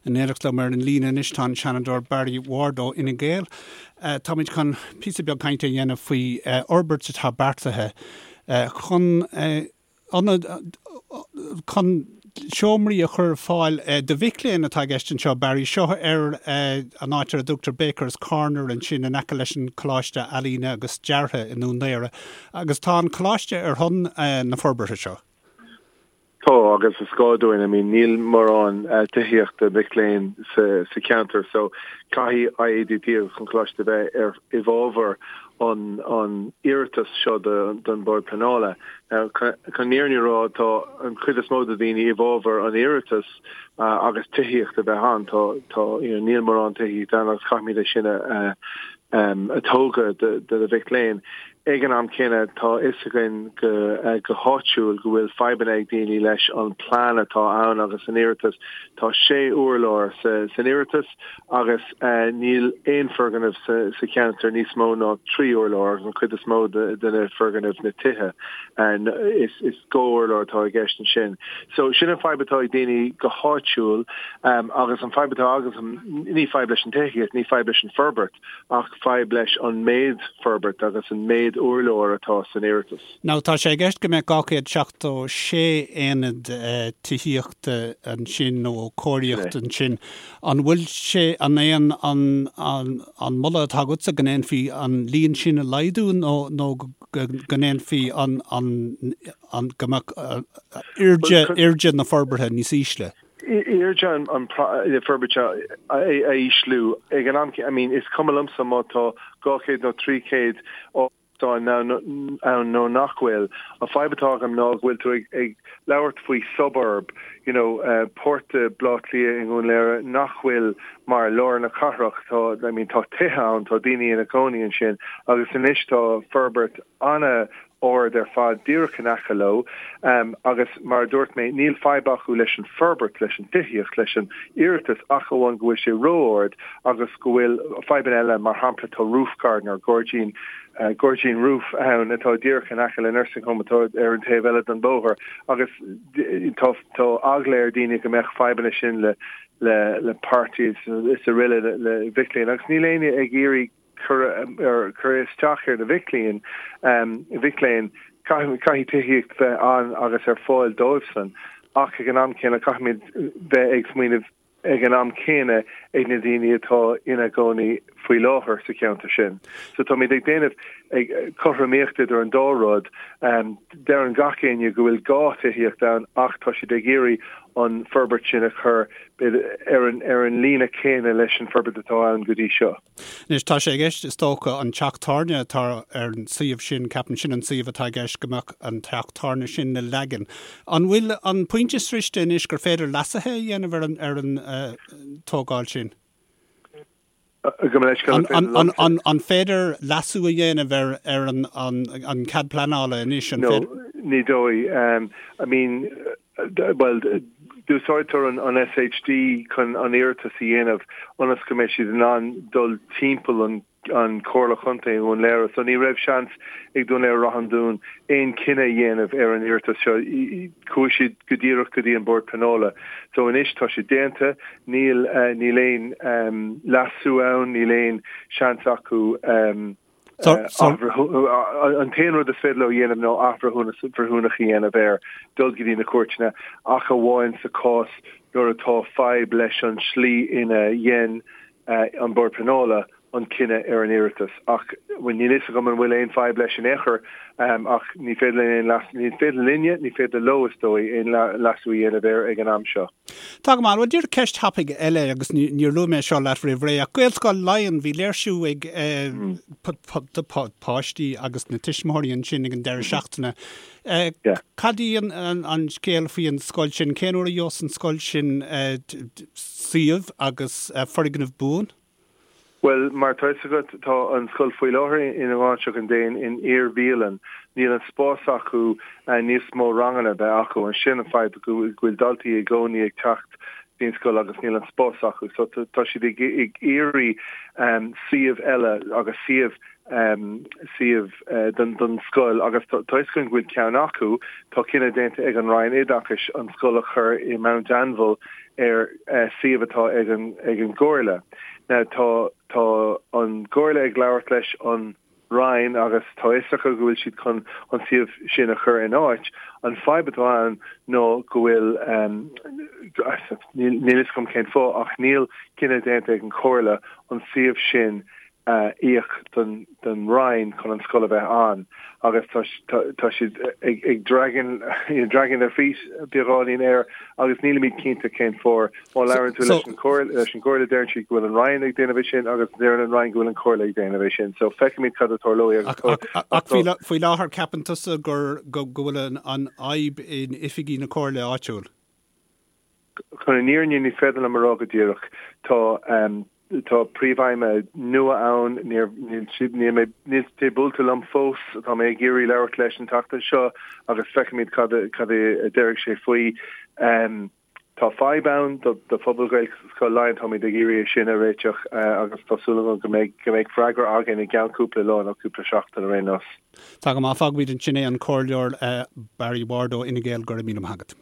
In éineacht liom ar an líne anois tá an Seanadóir Barry Ward ó Fhine Gael. Táimid chun píosa beag cainte a dhéanamh faoi fhorbairt atá beartaithe chun ionad, chun seomraí a chur ar fáil do mhic léinn atá i gceist anseo, Barry. Seo ar an áit ar a dtugtar Baker's Corner ansin in aice leis an Coláiste Ealaíne agus Deartha i nDún Laoghaire. Agus tá an coláiste ar son na forbartha seo. Tá, agus is gá dúinn, I mean níl mórán tithíochta mic léinn sa cheantar so caithfidh IADT agus an Coláiste bheith ar i bhfabhar an an iarratas seo don Bord Pleanála. Now chun an fhírinne a rá tá an chuid is mó de dhaoine i bhfabhar an iarratas agus tithíocht a bheith ann. Tá tá you know níl mórán tithíocht ann agus caithfimid é sin a a tógadh do na mhic léinn. Ag an am céanna, tá a fhios againn go háitiúil go bhfuil fadhbanna ag daoine leis an plean atá ann agus an iarratas. Tá sé urlár san iarratas agus níl aon foirgneamh sa cheantar níos mó ná 3 urlár agus an chuid is mó de na foirgnimh, na tithe, is dhá urlár atá i gceist ansin. So sin an fadhb atá ag daoine go háitiúil agus an fadhb atá agamsa, ní fadhb leis an tithíocht, ní fadhb leis an forbairt, ach fadhb leis an méid forbairt agus an méid urlár atá san iarratas. Now tá sé i gceist go mbeadh 276 aonad tithíochta ansin nó cóiríocht ansin. An bhfuil sé, an é an an moladh atá agatsa go ndéanfaí an líon sin a laghdú nó nó go ndéanfaí an an an go mbeadh airde airde na forbartha níos ísle? Airde an forbairt a ísliú ag an am, I mean is cuma liomsa má tá 200 nó 300 árasán ann nó nach bhfuil. An fadhb atá agam ná go bhfuil tú ag labhairt faoi suburb, you know, páirt de Bhaile Átha Cliath i nDún Laoghaire nach bhfuil mar lár na cathrach. Tá, I mean, tá tithe ann, tá daoine ina gcónaí ansin agus anois tá forbairt ana ard ar fad díreach in aice leo agus mar a dúirt mé, níl fadhb acu leis an forbairt, leis an tithíocht, leis an iarratas ach amháin go bhfuil sé ró-ard agus go bhfuil fadhbanna eile, mar shampla tá roof garden or gairdín, gairdín roof ann atá díreach in aice le nursing home atá ar an taobh eile den bóthar agus tá tá eagla ar daoine go mbeadh fadhbanna sin le le le parties is araile le mhic léinn agus níl éinne ag iarraidh cur cur isteach ar na mhic léinn, mhic léinn, caithfidh tithíocht bheith ann agus ar fáil dóibhsan, ach ag an am céanna caithfimid bheith ag smaoineamh ag an am céanna ag na daoine atá ina gcónaí faoi láthair sa cheantar sin. So táimid ag déanamh ag cothromaíocht idir an dá rud. Deireann gach éinne go bhfuil gá tithíocht ann ach tá siad ag iarraidh an forbairt sin a chur ar an ar an líne céanna leis an forbairt atá ann go dtí seo. Anois, tá sé i gceist, is dócha, an teach tábhairne atá ar an suíomh sin, ceapaim sin an suíomh atá i gceist, go mbeadh an teach tábhairne sin le leagan. An bhfuil an pointe sroichte anois gur féidir leasuithe a dhéanamh ar an, ar an tógáil sin? An, an féidir leasú a dhéanamh ar, ar an, an, an cead pleanála anois? An féidir? No, ní dóigh. I mean, Bhuel, d'úsáidtear an SHD chun an iarratas a dhéanamh ionas go mbeidh siad in ann dul timpeall an an Comhairle Chontae i nDún Laoghaire. So ní raibh seans ag Dún Laoghaire-Ráth an Dúin aon cinneadh a dhéanamh ar an iarratas seo. Chuaigh siad go díreach go dtí an Bord Pleanála. So anois tá sé déanta, níl níl aon leasú ann, níl aon seans acu An t-aon rud is féidir leo a dhéanamh ná athbhreithiúnas breithiúnach a dhéanamh air, dul go dtí na cúirteanna, ach amháin sa chás nuair atá fadhb leis an slí ina dhein an Bord Pleanála an cinneadh ar an iarratas. Ach bhuel níl fhios agam an bhfuil aon fadhb leis in aon chor, ach ní féidir linn aon leas, ní féidir linne, ní féidir leo is dóigh, aon leasú a dhéanamh air ag an am seo. Tá go maith. Bhuel, díreach ceist thapaidh eile agus níor luaigh mé seo leat roimh ré ach Gaelscoil Laighean, bhí léirsiú ag páistí agus na tuismitheoirí ansin ag an deireadh seachtaine. Cad í an scéal faoi an scoil sin? Cén uair a gheobhas an scoil sin suíomh agus foirgneamh buan? Bhuel, mar atá fhios agat, tá an scoil faoi láthair i nGráinseach an Déin in iar-bhialann. Níl an spás acu níos mó ranganna a bheith acu. Sin an fadhb, go bhfuil daltaí i gcónaí ag teacht dtí'n scoil agus níl an spás acu. So tá siad ag iarraidh suíomh eile agus suíomh suíomh don scoil agus tá fhios againn go bhfuil ceann acu. Tá cinneadh déanta ag an Roinn Oideachais an scoil a chur i Mount Anville. ar suíomh atá ag an ag an gComhairle. Now tá tá an gComhairle ag labhairt leis an Roinn agus tá fhios acu go bhfuil siad chun an suíomh sin a chur in áit. An fadhb atá ann ná go bhfuil níl fhios agam cén fáth ach níl cinneadh déanta ag an Chomhairle an suíomh sin a íoc don don Roinn chun an scoil a bheith ann agus tá tá siad ag ag dragging you know, dragging their feet beagáinín air agus nílimid cinnte cén fáth. Má labhrann tú leis an Chomhairle leis an gComhairle deireann siad go bhfuil an Roinn ag déanamh é sin agus deireann an Roinn go bhfuil an Chomhairle ag déanamh é sin. So feicfimid cad a tarlóidh agus Ach faoi láthair ceapann tusa gur go bhfuil an fhadhb in oifigí na Comhairle áitiúil? Chun an fhírinne ní féidir liom a rá go díreach. Tá tá príomhfheidhmeannach nua ann, níor níl siad níl mé níl sé buailte liom fós, tá mé ag iarraidh labhairt leis an tseachtain seo agus feicfimid cad a cad a déarfaidh sé faoi. Tá fadhb ann do phobal Ghaelscoil Laighean, táimid ag iarraidh é sin a réiteach agus tá súil agam go mbeidh go mbeidh freagra againn i gceann cúpla lá nó cúpla seachtain ar aon nós. Tá go maith, fágfaimid ansin é an Comhairleoir Barry Ward ó Fhine Gael, go raibh míle maith agat.